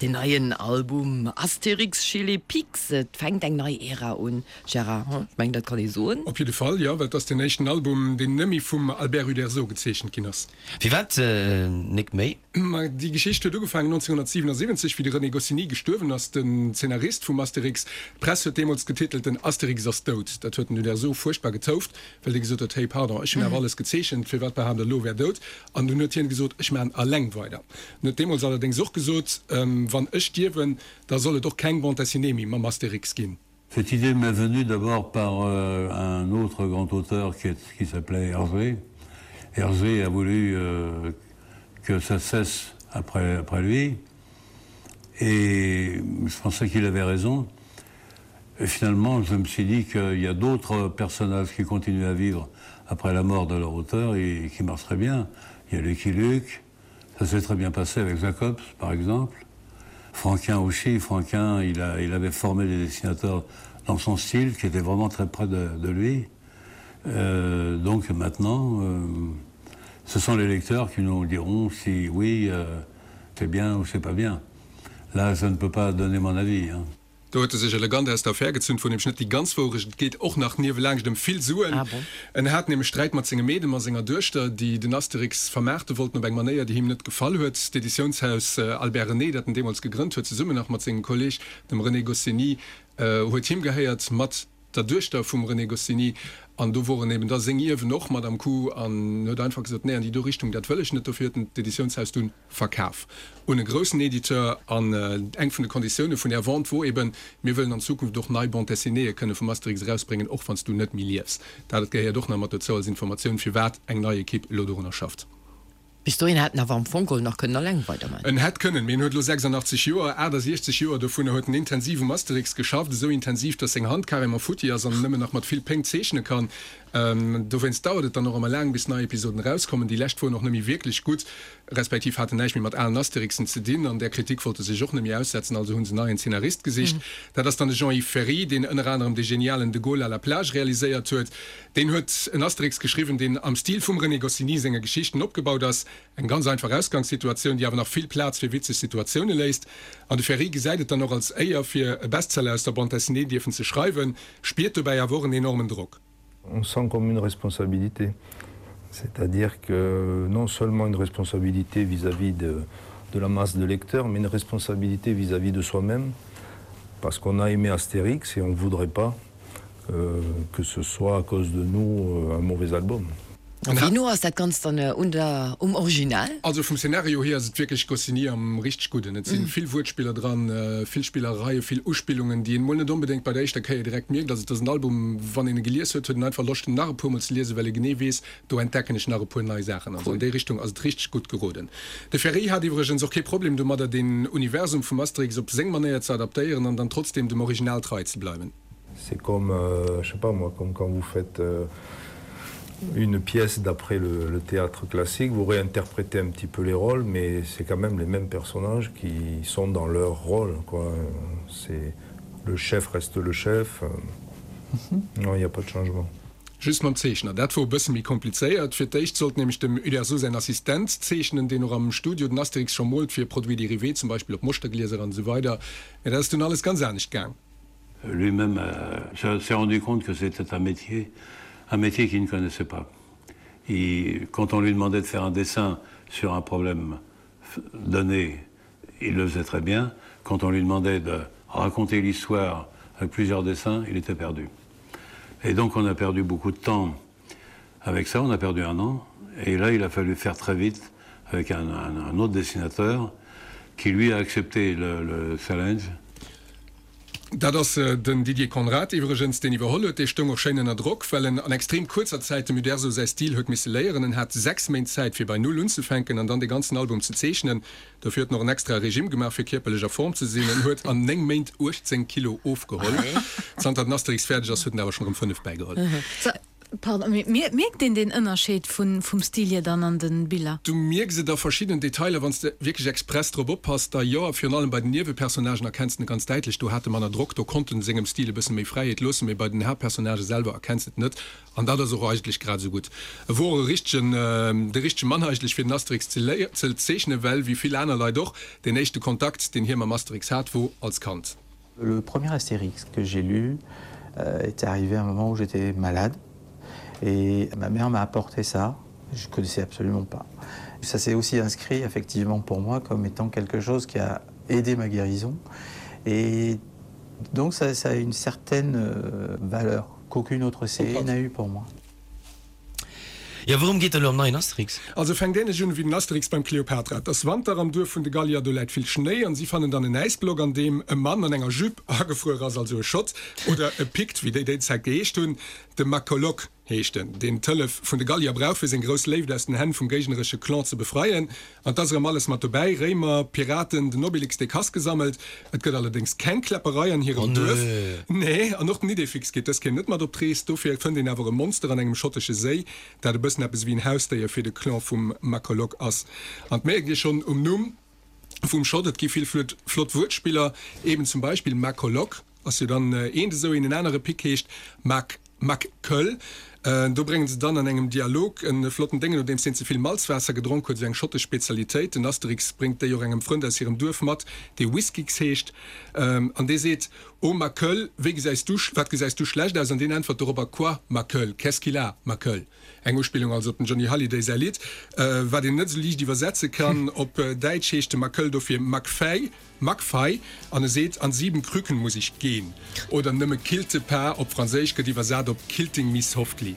Deen neien Album Astérix chez les Picts, et fänkt eng nei Ära un, Gérard, ech mengen dat kann ee soen. Op jidde Fall, jo, well et ass deen éischten Album, deen nëmme vum Albert Uderzo gezeechent ginn ass. Firwat nik méi? Ma déi Geschicht huet ugefaangen 1977, wéi de René Goscinny gestuerwen ass, den Zeenarist vum Astérix. D'Press huet deemools getitelt, Den Astérix ass dout. Dat huet den Uderzo fuerchtbar getouft, well dee gesot huet, Hey, pardon, ech hunn awer alles gezeechent, firwat behaapt der elo, e wär dout? An dunn huet hien gesot, Ech maachen alleng weider. En huet deemools allerdéngs och gesot, Wann ech stierwen, da soll et och keng Bande dessinée méi mam Astérix ginn. Cette idée m'est venue d'abord par euh, un autre grand auteur qui, qui s'appelait Hergé. Hergé a voulu euh, que ça cesse après, après lui et je pensais qu'il avait raison. Et finalement, je me suis dit qu'il y a d'autres personnages qui continuent à vivre après la mort de leur auteur et qui marchent très bien. Il y a Lucky Luke, ça s'est très bien passé avec Jacobs par exemple. Franquin aussi, Franquin, il, a, il avait formé des dessinateurs dans son style qui était vraiment très près de, de lui. Euh, donc maintenant, euh, ce sont les lecteurs qui nous diront si oui, euh, c'est bien ou c'est pas bien. Là, je ne peux pas donner mon avis. Hein. Do huet e sech elegant aus der Affär gezunn, wor nämlech net déi ganz Wourecht. Et geet och nach niewelaanscht ëm vill Suen. En hat nämlech Sträit mat sengem Meedem a senger Duechter, déi den Asterix vermaarte wollten op eng Manéier, déi him net gefall huet. D'Editiounshaus Albert René, dat en deemools gegrënnt huet, zesummen nach mat sengem Kolleeg, dem René Goscinny, huet him gehéiert, mat der Duechter vum René Goscinny. An do woren eben da seng Ierwen och mat am Coup an huet einfach gesot, Nee, an déi do Richtung, dat wëll ech net. Dofir huet en d'Editiounshaus dunn Verkaf un e groussen Editeur an eng vun de Konditioune vun där Vente wor eben, Mir wëllen an Zukunft och nei Bande dessinéeë kënne vum Asterix erausbréngen, och wann s du net méi liefs. Dat gehéiert och nach mat dozou als Informatioun, firwat eng nei Ekipp elo dorunner schafft. Bis dohin hätt en awer am Fong geholl nach kënnen alleng weiderman. En hätt kënnen, mee en huet elo 86 Joer. 68 Joer dovunner huet en intensiv um Asterix geschafft, esou intensiv, datt seng Hand carrément futti ass an en nëmmen nach mat vill Péng zeechne kann. Dowéinst dauert et dann och ëmmer laang, bis nei Episoden erauskommen. Déi lescht woren och net méi wierklech gutt, respektiv haten näischt méi mat alen Asterixen ze dinn. An där Kritik wollte se sech och net méi aussetzen, also hu se neien Zeenarist gesicht. Dat ass dann de Jean-Yves Ferri, deen ënner anerem de genialen De Gaulle à la plage realiséiert huet. Deen huet en Asterix geschriwwen, deen am Stil vum René Goscinny senge Geschichten opgebaut ass. Eng ganz einfach Ausgangssituatioun, déi awer nach vill Plaz fir witzeg Situatioune léisst. An de Ferri gesäit et dann och als Éier, fir e Bestseller aus der Bande dessinée dierfen ze schreiwen, spiert dobäi awer och en enormen Drock. On sent comme une responsabilité c'est-à-dire que non seulement une responsabilité vis-à-vis de, de la masse de lecteurs, mais une responsabilité vis-à-vis -vis de soi-même parce qu'on a aimé Astérix et on ne voudrait pas euh, que ce soit à cause de nous euh, un mauvais album. An wéi no ass dat Ganzt dann un der, um Original? Also vum Szenario hier ass et wierklech Goscinny am richteg Gudden. Et si vill Wuertspiller dran, vill Spillereien, vill Uspillungen, déi een mol net onbedéngt bei der éischter Kéier direkt mierkt. Also et ass en Album, wann een e gelies huet, huet een einfach Loscht en nach e puer mol ze liesen, well ee genee weess, do entdecken ech nach e puer nei Saachen. Also an déi Richtung ass et richteg gutt geroden. De Ferry hat iwwregens och kee Problem domadder, den Universum vum Asterix op seng Manéier ze adaptéieren an dann trotzdeem dem Original trei ze bleiwen. C'est comme euh, je sais pas moi comme quand vous faites euh, une pièce d'après le, le théâtre classique, vous réinterprétez un petit peu les rôles, mais c'est quand même les mêmes personnages qui sont dans leur rôle quoi. C'est le chef reste le chef. Mm -hmm. Non, il n'y a pas de changement. Just mam Zeechner, dat wor e bësse méi komplizéiert. Fir d'éischt sollt nämlech dem Uderzo säin Assistent zeechnen, deen och am Studio den Asterix scho moolt fir Produits dérivés, zum Beispill op Moschterglieser an esou weider. Mä dat ass dunn alles ganz anescht gaang. Lui-même euh, s'est rendu compte que c'était un métier, un métier qu'il ne connaissait pas. Et quand on lui demandait de faire un dessin sur un problème donné, il le faisait très bien. Quand on lui demandait de raconter l'histoire avec plusieurs dessins, il était perdu. Et donc on a perdu beaucoup de temps avec ça, on a perdu un an. Et là, il a fallu faire très vite avec un, un, un autre dessinateur qui lui a accepté le, le challenge. Dat ass den Didier Conrad iwwregens, deen iwwerholl huet. Dee stoung och schéin ënner Drock, well en an extrem kuerzer Zäit dem Uderzo säi Stil huet misse léieren. En hat 6 Méint Zäit, fir bei Null unzefänken an dann de ganzen Album ze zeechnen. Dofir huet en och en extrae Regime gemaach, fir kierperlech a Form ze sinn. En huet an 9 Méint 18 Kilo ofgeholl. Zanter den Asterix fäerdeg ass, huet en awer schonn erëm 5 bäigeholl. Pardon, mee mierkt een deen Ënnerscheed vum Stil hier dann an den Biller? Du mierks et a verschiddenen Detailer, wann s de wierklech express drop oppass, da jo. A virun allem bei den Niewepersonnagen erkenns de en ganz däitlech. Do hat e manner Drock, do konnt en sengem Stil e bësse méi Fräiheet loossen, mee bei den Haaptpersonnagë selwer erkenns de et net. An dat ass och eigentlech grad esou gutt. E wor och e richtegen, de richtege Mann eigentlech fir den Asterix ze ze zeechnen, well wéi vill aner Leit och, deen éischte Kontakt, deen hie mam Asterix hat, wor als Kand. Le premier Astérix que j'ai lu euh, était arrivé à un moment où j'étais malade et ma mère m'a apporté ça, je connaissais absolument pas. Ça s'est aussi inscrit effectivement pour moi comme étant quelque chose qui a aidé ma guérison et donc ça, ça a une certaine euh, valeur qu'aucune autre série n'a eu pour moi. Jo, wourëm geet et elo am neien Asterix? Also fänkt ähnlech un ewéi den Asterix beim Kleopatra. Et ass Wanter am Duerf vun de Gallier, do läit vill Schnéi an si fannen dann en Äisblock an deem e Mann an enger Jupe agefruer ass, also e Schott oder e Pikt wéi déi déi Zäit geheescht hunn. De Macolok heescht en, deen d'Hëllef vun de Gallier brauch fir seng grouss Léift aus den Hänn vum géigneresche Clan ze befreien. An 't ass erëm alles mat dobäi, Réimer, Piraten, den Obelix dee Kass gesammelt. Et gëtt allerdéngs keng Kläpperei an hirem Duerf. Nee, an och den Idéfix geet dës Kéier net mat op d'Rees. Dofir fënnt een awer e Monster an engem schottesche Séi, dat e bëssen eppes ewéi en Hausdéier fir de Clan vum Macolok ass. An 't mierkt ee schonn um Numm vum Schott, et gi vill flott Wuertspiller, eben zum Beispill Macolok. Ass jo dann eent esou een, en anere Pic heescht Mac McCull. Do bréngen se dann an engem Dialog e flotten Déngen, nodeems deen ze vill Malzwaasser gedronk huet, esou eng schottesch Spezialitéit. Den Asterix bréngt déi och engem Frënd aus hirem Duerf mat, dee Whiskix heescht, an dee seet, Oh McCull, wéi gesäis du, wat gesäis du schlecht aus? An deen äntwert dorobber, Quoi, McCull, qu'est-ce qu'il a, McCull? Eng Uspillung also op dem Johnny Hallyday säi Lidd, wat een net esou liicht iwwersetze kann. Op Däitsch heescht de McCull dofir McFay. McFay, an e seet, An sieben Krücken muss ich gehen. Oder nëmme Kilte pas op Franséisch gëtt iwwersat op Kilting me softly.